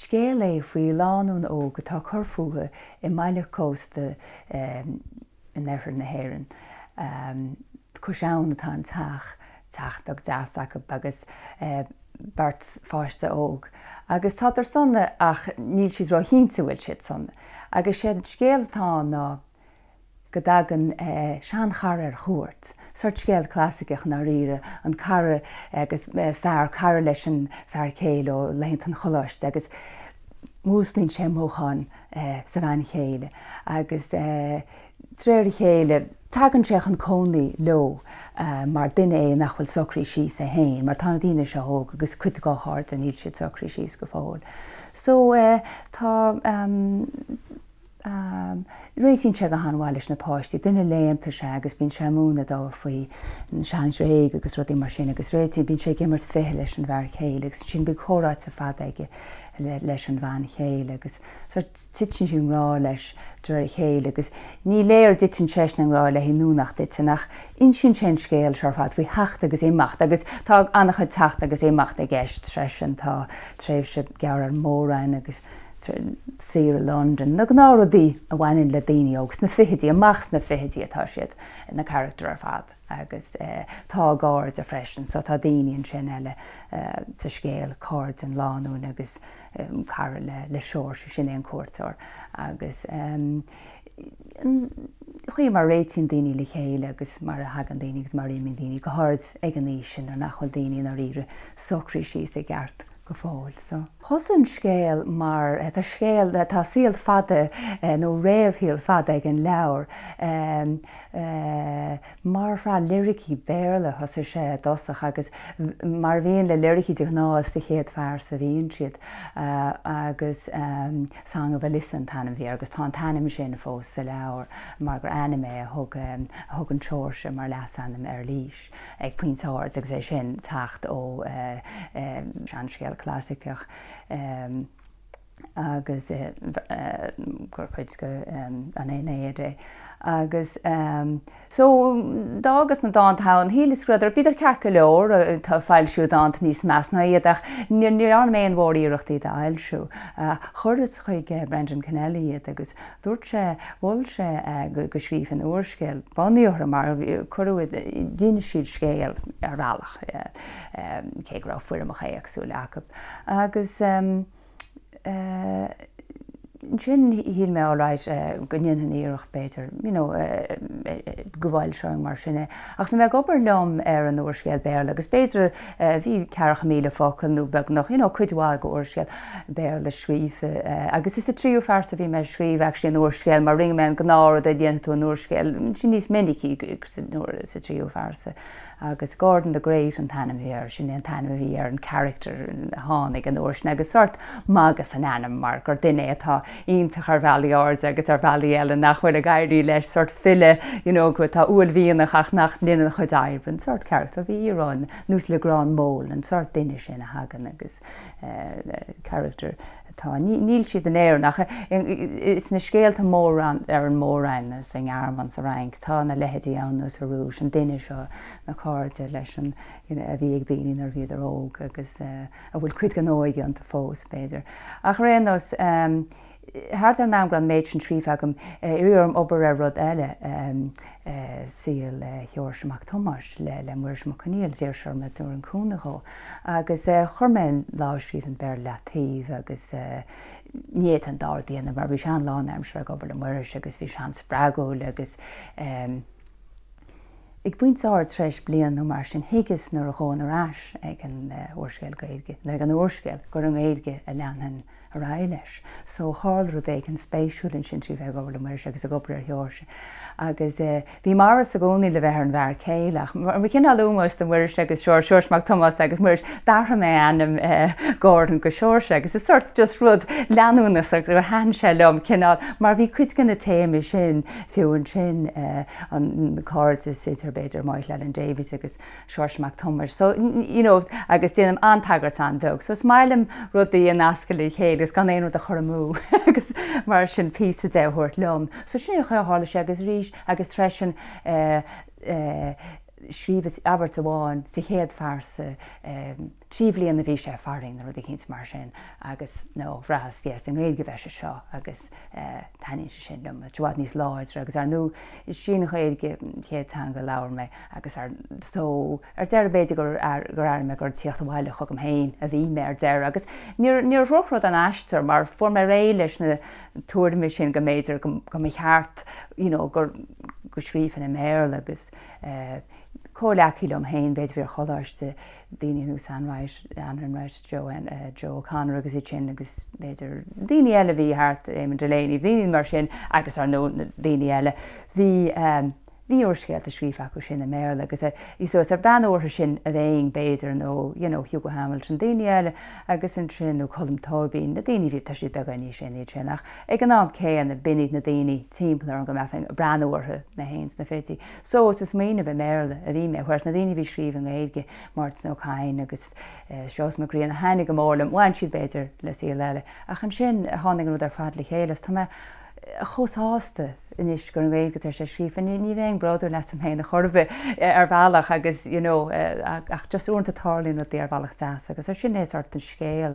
Scéal é faoi lánúin óg atá ag cur fúthu i mbaile cósta in oirthear na hÉireann. Cois abhann atá an teach, teach beag deas acu agus beirt pháiste óg. Agus tádar sona ach níl siad róchinnte an bhfuil siad sona. Agus sé an scéal atá ann ná go dtagann seanchara ar chuairt, sórt scéal clasaiceach i ndáiríre, an cara agus fear, cara leis an fear céile ó laethanta an choláiste agus músclaíonn sé mothúcháin sa bhean chéile agus de réir a chéile tagann sé chun cónaí leo mar duine é nach bhfuil socraithe síos é féin mar tá na daoine seo óg agus cuid dá chairde níl siad socraithe síos go fóill. So tá. Réitíonn sé go han-mhaith leis na páistí. Duine léannta is ea agus bíonn sé ag múineadh dóibh faoi an sean-Ghréig agus rudaí mar sin agus réitíonn, bíonn sé ag imirt ficheall leis an bhfear céile agus ansin bíonn comhráite fada aige leis an bhean chéile agus sórt titeann sí i ngrá leis de réir a chéile agus ní léir an dtiteann seisean i ngrá léi nó nach dtiteann ach insíonn sé an scéal seo ar fad faoi theacht agus imeacht agus tá an-chuid teacht agus imeacht i gceist freisin, tá tréimhse gearr ar an Mór-Roinn agus saoire i Londain, na gnáthrudaí a bhaineann le daoine óg, sna fichidí, amach sna fichidí atá siad, na carachtair ar fad agus tá a gcairde freisin, so tá daoine ansin eile sa scéal, cairde an lánúin agus cara le Seoirse, sin é an cuairteoir agus an chaoi mar a réitíonn daoine le chéile agus mar a thagann daoine agus mar a imíonn daoine, go háirid ag an aois sin nuair nach bhfuil daoine i ndáiríre socraithe síos i gceart. go fóill. So. Thosaigh an scéal mar, tá scéal, tá saol fada nó réamhshaol fada ag an leabhar. Mar shraith liricí Béarla a thosaigh sé i dtosach agus mar a bhíonn le liricí de ghnáth is sa chéad phearsa a bhíonn siad agus Song of Alyssa an t-ainm a bhí air agus tá an t-ainm sin fós sa leabhar mar gur ainm é a thug, a thug an Seoirse mar leasainm ar Eilís. ag pointe áirid agus é sin teacht ó seanscéal clasaiceach agus gur cuid de an Aeneid é. Agus so d'fhágas na dánta ann, shíleas go raibh, bhíodar ceart go leor, tá foilsíodh dánta níos measa ná iad ach ní dhearna mé aon mhór-iarracht iad a fhoilsiú. Chuireas chuig Brendan Kennelly iad agus Dúirt sé, mhol sé go scríobhfainn úrscéal bunaithe orthu mar cuireadh, d'inis siad scéal ar bhealach, cé go raibh foirmeacha éagsúla acu. Agus ansin shíl mé alright go ndéanfainn iarracht b'fhéidir, you know, go bhfoilseoinn mar sin é. Ach bhí mé ag obair liom ar an úrscéal Béarla agus b'fhéidir bhí 40,000 focal nó beagnach, you know, cuid mhaith de úrscéal Béarla scríofa agus is sa tríú phearsa a bhí mé ag scríobh actually an úrscéal mar rinne mé an gnáthrud a dhéanfaidh tú in úrscéal, sin níos minicí sa tríú phearsa. Agus Gordon the Great an t-ainm a bhí air, sin é an t-ainm a bhí ar an character a tháinig an uair sin agus sórt magadh san ainm mar gur duine é atá iontach ar bhealaí áirde agus ar bhealaí eile nach bhfuil ag éirí leis, sórt file you know atá uaillmhianach ach nach ndéanann a chuid oibre, an sórt character. Bhí íoróin nós Legrand Mole, an sórt duine sin a thagann agus character atá, níl siad in Éirinn ach sna scéalta mór ar an Mór-Roinn, sa nGearmáin, sa Fhrainc, tá na leithéidí ann nó sa Rúis, an duine seo, na cairde leis an, you know, a bhí ag daoine nuair a bhíodar óg agus a bhfuil cuid den óige iontu fós, b'fhéidir. Ach ar aon nós, thart ar an am go raibh an méid sin scríofa agam, iarradh orm obair ar rud eile, saol Sheoirse Mac Tomáis le Muiris Mac Conghail, d'iarr sé orm a dtabharfainn cúnamh dhó. Agus chuir mé an lámhscríbhinn Béarla leataobh agus ní fhéadfainn an dá rud a dhéanamh mar bhí sé an-lánaimseartha ag obair le Muiris agus bhí sé an-spreagúil agus ag pointe áirid tar éis bliain nó mar sin thuigeas nuair a ghabhfainn ar ais ag an úrscéal Gaeilge, nó ag an úrscéal, gur i nGaeilge a leanfainn ar aghaidh leis. So tharla rud éigin spéisiúil ansin trí bheith ag obair le Muiris agus ag obair ar Sheoirse. Agus bhí m'amhras i gcónaí le bheith ar an bhfear céile ach mar chineál ómóis do Mhuiris agus Seoirse, Seoirse Mac Tomáis agus Muiris, d'athraigh mé ainm Gordon go Seoirse agus is sort just rud leanúnach agus gur thaitin sé liom cineál mar bhí cuid de na téamaí sin fiú ansin an cairdeas idir b'fhéidir Michael Allen Davies agus Seoirse Mac Tomáis. So, you know, agus déanaim an-tagairt an-bheag. So is maith liom rudaí a nascadh le chéile agus gan aon rud a chur amú agus mar sin píosa de a thabhairt liom. So sin é an chaoi a tharla sé agus arís agus freisin eh, eh, Scríobhas abairt amháin sa chéad phearsa, 3 bhliana a bhí sé farainn nó rud eicínt mar sin agus no, bhraitheas, yes, i nGaeilge a bheidh sé seo agus taitníonn sé sin liom, it's i bhfad níos láidre agus ar ndóigh is í an Ghaeilge an chéad teanga a labhair mé agus ar so ar deireadh b'fhéidir gur gur airigh mé gur ag tíocht abhaile chugam féin a bhí mé ar deireadh agus níor níor dhrochrud an aistear mar fuair mé réidh leis na tuairimí sin go mb'fhéidir go go mba cheart you know gur go scríobhfainn i mBéarla agus comhghleacaí liom féin, b'fhéidir bhí ar choláiste, daoine ar nós Anne Wright, Anne Wright, Joe, Joe O'Connor agus iad sin agus b'fhéidir daoine eile a bhí thart, Eamon Delaney, daoine mar sin agus ar ndóigh na daoine eile. Bhí bhí úrscéalta scríofa acu sin i mBéarla agus so is ag breathnú orthu sin a bheinn b'fhéidir nó you know Hugo Hamilton, daoine eile agus ansin nó Colm Tóibín, na daoine a bhí, tá siad beagán níos sine iad sin ach ag an am céanna b'in iad na daoine timpeall orm go mbeifinn ag breathnú orthu mé féin sna fichidí. So is ag smaoineamh i mBéarla a bhí mé, whereas na daoine a bhí ag scríobh i nGaeilge, Máirtín Ó Cadhain agus Seosamh Mac Grianna, thaitnigh go mór liom, bhain siad b'fhéidir le saol eile. Ach ansin tháinig an rud ar fad le chéile is tá mé chomh sásta anois gur i nGaeilge atá sé scríofa. Ní ní bheinn bródúil asam féin ar chor ar bith ar bhealach agus you know ach just uaireanta tarlaíonn rudaí ar bhealach deas agus sin é sort an scéal.